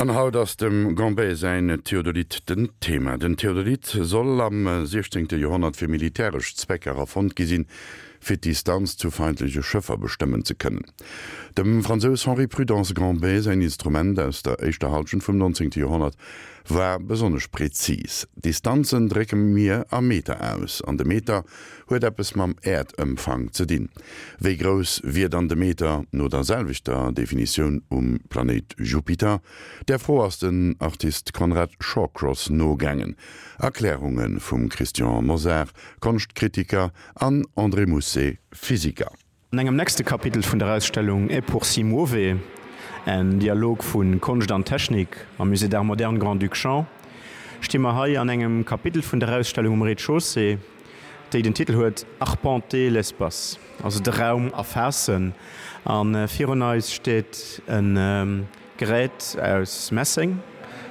An haut ass dem Gambet säin Theodolit den Thema. Den Theodolit soll am 16. Joerhonnert fir militäresch Zwecker erfonnt gi sinn, fir d'Distanz zu feindleche Schëffer bestëmmen ze kënnen. Dem Fransous Henri Prudence Gambet säin Instrument aus der éischter Hallschent vum 19. Joerhonnert war besonnesch prezis. Distanzen drécke mir a Meter aus, an de Meter huet eppes mam Äerdëmfang ze dinn. Wéi grouss wier dann de Meter no der selwechter Definitioun um Planéit Jupiter? Där Fro ass den Artist Conrad Shawcross nogaangen. Erklärunge vum Christian Mosar, Konschtkritiker, an André Mousset, Physiker. An engem nächste Kapitel vun der Ausstellung E pur si muove, en Dialog vu Konscht an Technik am Musée d'Art Moderne Grand-Duc Jean, sti mer hei an engem Kapitel vun der Ausstellung um Rez-de-chaussée, déi den Titel huet Arpenter l'espace, also de Raum erfaassen. A virun eis steet e Gerät aus Messeng,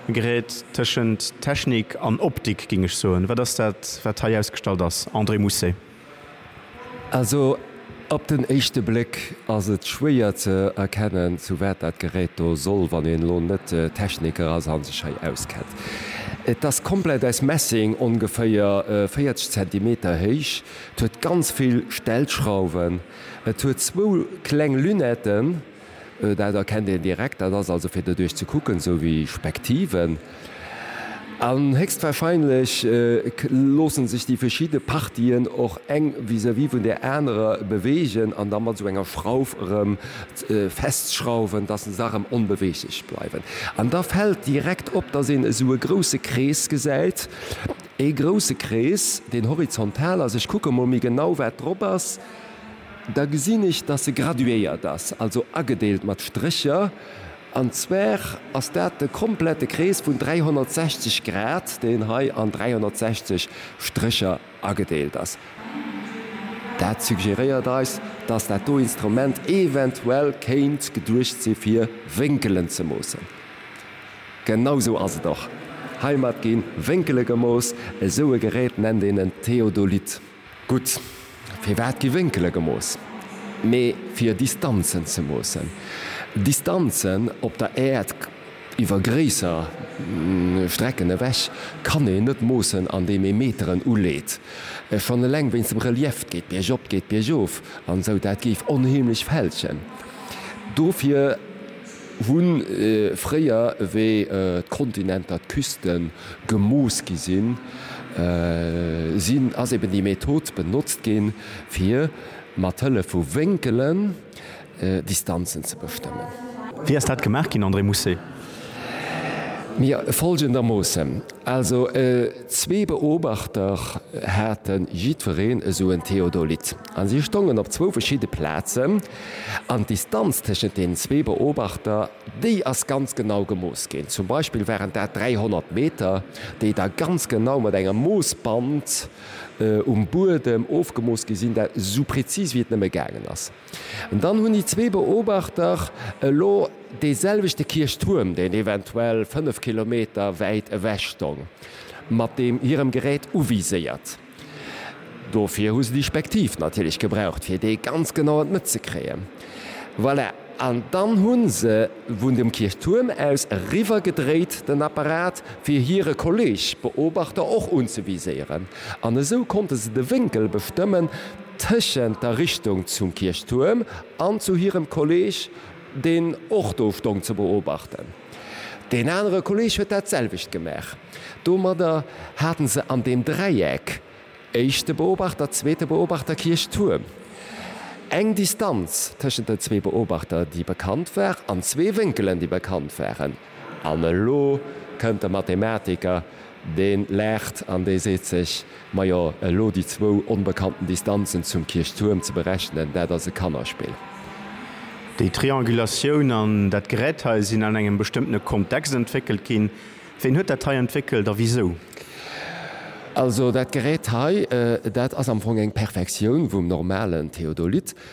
e Gerät tëschent Technik an Optik, géing ech soen. Wat ass dat, wat hei ausgestallt ass, André Mousset? Also op den éischte Bléck ass et schwéier ze erkennen, zu wat dat Gerät do soll, wann een elo net Techniker ass a sech hei auskennt. Et ass komplett aus Messing, ongeféier 40 Zentimeter héich. Et huet ganz vill Stellschrauwen. Et huet zwou kleng Lunetten. Dat erkennt een direkt, dat ass also fir doduerch ze kucken, esou wéi Spektiven. An héchstwahrscheinlech loosse sech déi verschidde Partien och eng vis-à-vis vun där anerer beweegen an da mat esou enger Schrauf erëm festschrauwen, dass se da erëm onbeweeglech bleiwen. An da fält direkt op, dass een esou e grousse Krees gesäit, ee grousse Krees, deen horizontal ass. Ech kucke mol méi genau, wat drop ass. Da gesinn ech, dass se graduéiert ass, also agedeelt mat Strécher. An zwar ass dat de komplette Krees vun 360 Grad, deen hei an 360 Strécher agedeelt ass. Dat suggeréiert eis, dass dat do Instrument eventuell kéint geduecht si fir Wénkelen ze moossen. Genau sou ass et och. Heimat gi Wénkele gemooss. Esou e Gerät nennt een en Theodolit. Gutt, firwat gi Wénkele gemooss? Mee fir Distanzen ze moossen. Distanzen op der Äerd iwwer gréisser Strecken ewech kann een net moossen andeem ee Meteren uleet. Schonn eleng wéinst dem Relief, 't geet biergop, 't geet biergof an esou, dat géif onheemlech fälschen. Dofir. Hu fréier, wéi d'Kontinenter, d'Küste gemooss gi sinn, sinn, ass eben déi Method benotzt ginn, fir mat Hëllef vu Wénkelen Distanzen ze bestëmmen. Wéi ass dat gemaach ginn, André Mousset? Mir folgendermoossen, Also zwee Beobachter hate jiddwereen esou en Theodolit a si stongen op zwou verschidde Plazen an d'Distanz tëschent deenen zwee Beobachter, déi ass ganz genau gemooss ginn. Zum Beispill waren dat 300 Meter, déi da ganz genau mat engem Moossband um Buedem ofgemooss gi sinn, dat esou prezis wéi et nëmme gaangen ass. An dann hunn déi zwee Beobachter elo dee selwechte Kierchtuerm, deen eventuell 5 Kilometer wäit ewech stong, mat deem hirem Gerät uviséiert. Dofir hu se déi Spektiv natierlech gebraucht, fir dee ganz genau an d'Mëtt ze kréien. Voilà, an dann hu se vun dem Kierchtuerm aus eriwwer gedréit den Apparat, fir hire Kolleg Beobachter och unzeviséieren. An esou konnte se de Wénkel bestëmmen tëschent der Richtung zum Kierchtuerm an zu hirem Kolleg, deen och do stong ze beobachten. Deen anere Kolleg huet dat selwecht gemaach. Domadder haten se an deem Dräieck, éischte Beobachter, zweete Beobachter, Kierchtuerm, eng Distanz tëschent den zwee Beobachter, déi bekannt war, an zwee Wénkelen, déi bekannt waren. An elo kënnt de Mathematiker, dee laacht an dee seet sech, Majo, elo déi zwou onbekannten Distanzen zum Kierchtuerm ze berechnen, dat ass e Kannerspill. Déi Triangulatioun an dat Gerät hei sinn an engem bestëmmtene Kontext entwéckelt ginn. Ween huet dat hei entwéckelt a wisou? Also dat Gerät hei, dat ass am Fong eng Perfektioun vum normalen Theodolit.